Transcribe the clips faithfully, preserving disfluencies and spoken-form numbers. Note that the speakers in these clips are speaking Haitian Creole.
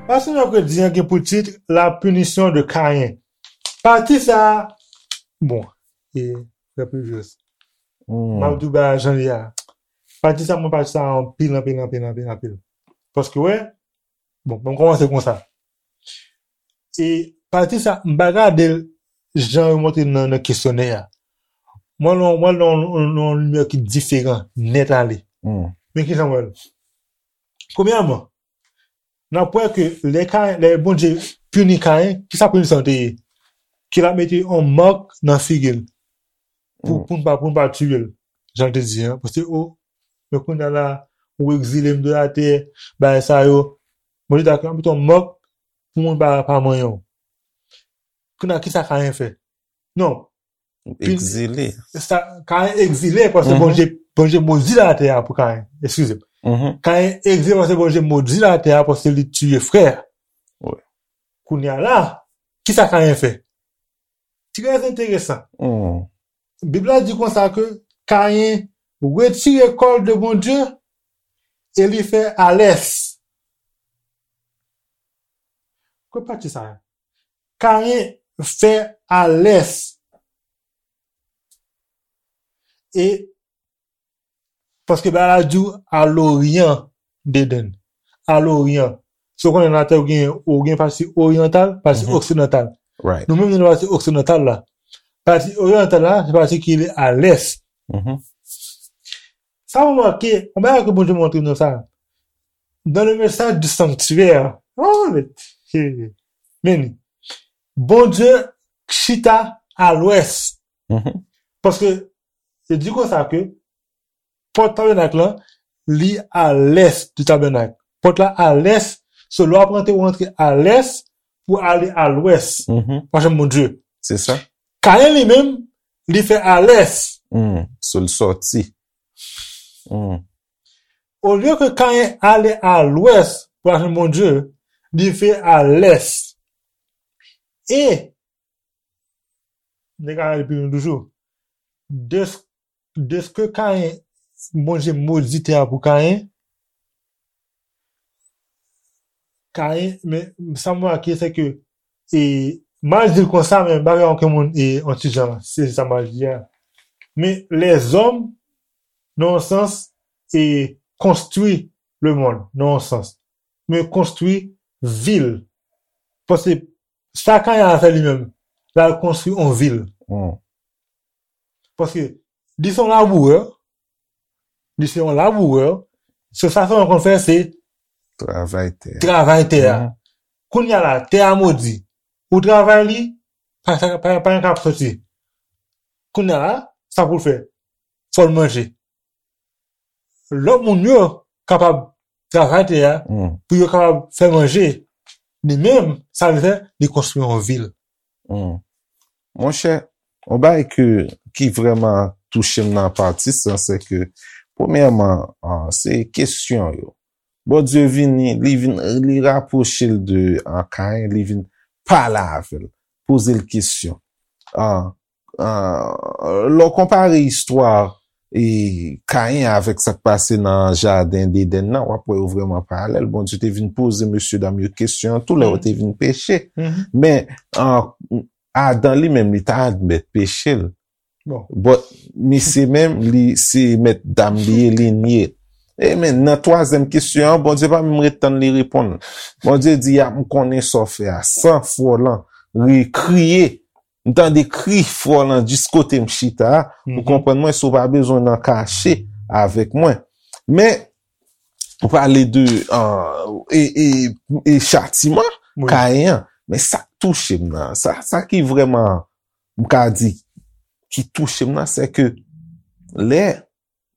Pastè mèkredi an gen pou tit La punition de Caïn. Pati sa a, bon, e, frè Pujos, m ap di w bagay jan li a. Pati sa a, mwen pati sa a anpil, anpil, anpil, anpil, anpil. Paske, wè, bon, mwen kòmanse konsa. E pati sa, m pa gade l jan yo montre nan, nan kesyonè a. Mwen, nan, mwen, nan, nan, nan yon limyè ki diferan, nèt ale. Men ki jan mwen wè l? Premyèman, n ap wè ke lè Kayen, lè Bondye pini Kayen, ki sa pini sa te ye? Ke l ap mete yon mak nan figi l. Pou, pou n pa, pou n pa tiye l. Jan l te di, an. Paske, o, men kounye a la, ou egzile m de latè, bagay sa yo. Bondye ta ka mete yon mak pou moun pa, pa manyen w. Kounye a, ki sa Kayen fè? Non. Egzile. Sa, Kayen egzile paske Bondye, Bondye modi latè a pou Kayen. Eskize m. Kayen egzile paske Bondye modi latè a paske li tiye frè. Wi. Kounye a la, ki sa Kayen fè? Trè enteresan. Bib la di konsa ke Kayen retire kò l de Bondye e li fè alès. Ki pati sa a? Kayen fè alès. E paske bagay la di w a loryan d'Eden. A loryan. Si w konnen latè ou gen, ou gen pati oryantal, pati oksidantal. Nou menm nou nan pati oksidantal la. Pati oryantal la, se pati ki rele a lès. Sa w remake, yon bagay ke Bondye montre nou sa. Dans le message du sanctuaire, oh, men, men, Bondye chita a lwès. Paske, se di konsa ke pòt tabènak lan, li a lès di tabènak. Pòt la a lès, so lè w ap rantre, ou rantre a lès pou ale a lwès. Ou pa janm Bondye. Se sa. Kayen li menm, li fè a lès. So l sòti. Olye ke Kayen ale a lwès pou al jwenn Bondye, li fè a lès. E, n te ka ale pi lwen toujou. Dès-, dèske Kayen, Bondye modi tè a pou Kayen, Kayen, men sa m remake, se ke, e, m al di l konsa, men m pa gen okenn moun, e, yon ti jan, se sa m al di a. Men lèzòm, nan yon sans, e, konstwi lemonn, nan yon sans. Men konstwi vil. Paske sa Kayen al fè li menm, l al konstwi yon vil. Paske li se yon labourè, li se yon labourè, se sa sèlman l konn fè, se travay tè a. Travay tè a. Kounye a la, tè a modi. Ou travay li, pa, pa, pa gen k ap soti. Kounye a la, sa pou l fè? Fò l manje. Lòt moun yo kapab travay tè a, pou yo kapab fè manje. Li menm, sa l fè, li konstwi yon vil. Monchè, yon bagay ke, ki vrèman touche m nan pati sa, se ke, premyèman, ah, se kesyon yo. Bondye vini, li vin, li rapwoche l de, ah, Kayen, li vin pale avè l, poze l kesyon. Ah, ah, lè w konpare istwa, e, Kayen avèk sa k pase nan jaden Edenn nan, w ap wè yo vrèman paralèl. Bondye te vin poze mesyedam yo kesyon an tou lè yo te vin peche. Men, ah, Adan li menm, li ta admèt peche l. Bon. But, misye menm, li se mèt dam li ye, li nye. E men, nan twazyèm kesyon an, Bondye pa menm ret tann li reponn. Bondye di, "A, m konnen sa w fè a." San fwa w lan, ri, kriye. M tande kri fwa w lan jis kote m chita a. Ou konprann mwen, si w pa bezwen nan kache avèk mwen. Men, ou pale de, ah, e, e, e chatiman Kayen an. Men sa k touche m nan, sa, sa ki vrèman, m ka di, ki touche m nan, se ke lè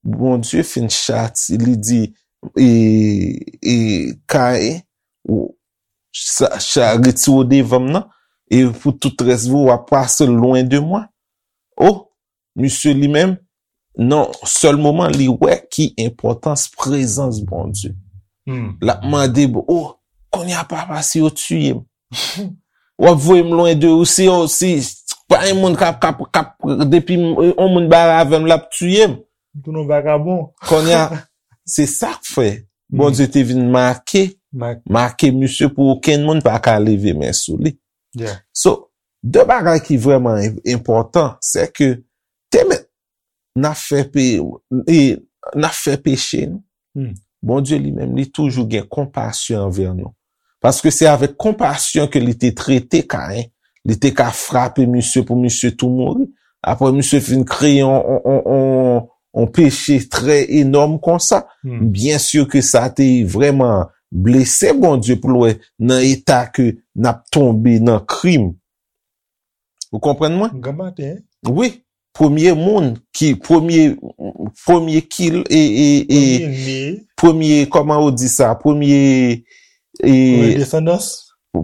Bondye fin chati, li di, e, e, Kayen, ou, sa, sa, retire w devan m nan, e pou tout rès vi w, w ap pase lwen de mwen. O, misye li menm, nan sèl moman, li wè ki enpòtans prezans Bondye. L ap mande, "O, kounye a, Papa, si yo tiye m, w ap voye m lwen de ou, si yo, si, Pa yon moun k ap, k ap, k ap, depi yon moun bare avè m, l ap tiye m. Tou nou vagabon. Kounye a, se sa k fè Bondye te vin make, make misye pou okenn moun pa ka leve men sou li. So, de bagay ki vrèman enpòtan, se ke te mèt n ap fè pe, e, n ap fè peche, non. Bondye li menm, li toujou gen konpasyon anvè nou. Paske se avèk konpasyon ke li te trete Kayen. Li te ka frape misye pou misye tou mouri. Apre misye fin kreye yon, yon, yon, yon, yon peche trè enòm konsa. Byen si ke sa te vrèman blese Bondye pou l wè nan eta ke n ap tonbe nan krim. Ou konprann mwen? Gran maten. Wi. Premye moun ki, premye, premye kil, e, e, e, Premye né, premye, kòman ou di sa? Premye, e, premye desandans.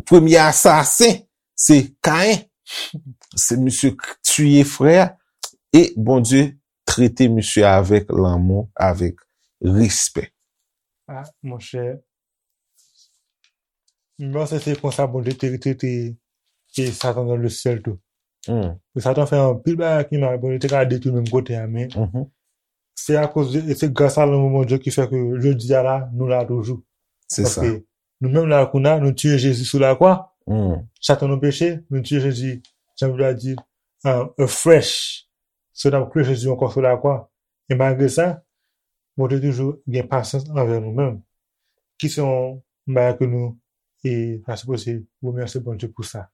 Premye asasen, se Kayen. Se misye k tiye frè a. E Bondye trete misye avèk lanmou, avèk respè. Ah, monchè. Mwen panse se konsa Bondye te trete e Satan nan le syèl tou. Hmm. E Satan fè anpil bagay ki mal, Bondye te ka detwi menm kote a, men Mhm. se akoz de, e se gras a lanmou Bondye ki fè ke jodi a la, nou la toujou. Se sa. Paske nou menm la kounye a, nou tiye Jezi sou lakwa, Hmm. chak tan nou peche, nou tiye Jezi, jan Bib la di, uh, afresh. So n ap kriye Jezi ankò sou lakwa. E malgre sa, Bondye toujou gen pasyans anvè nou menm. Ki se yon bagay ke nou e ta sipoze remèsye Bondye pou sa.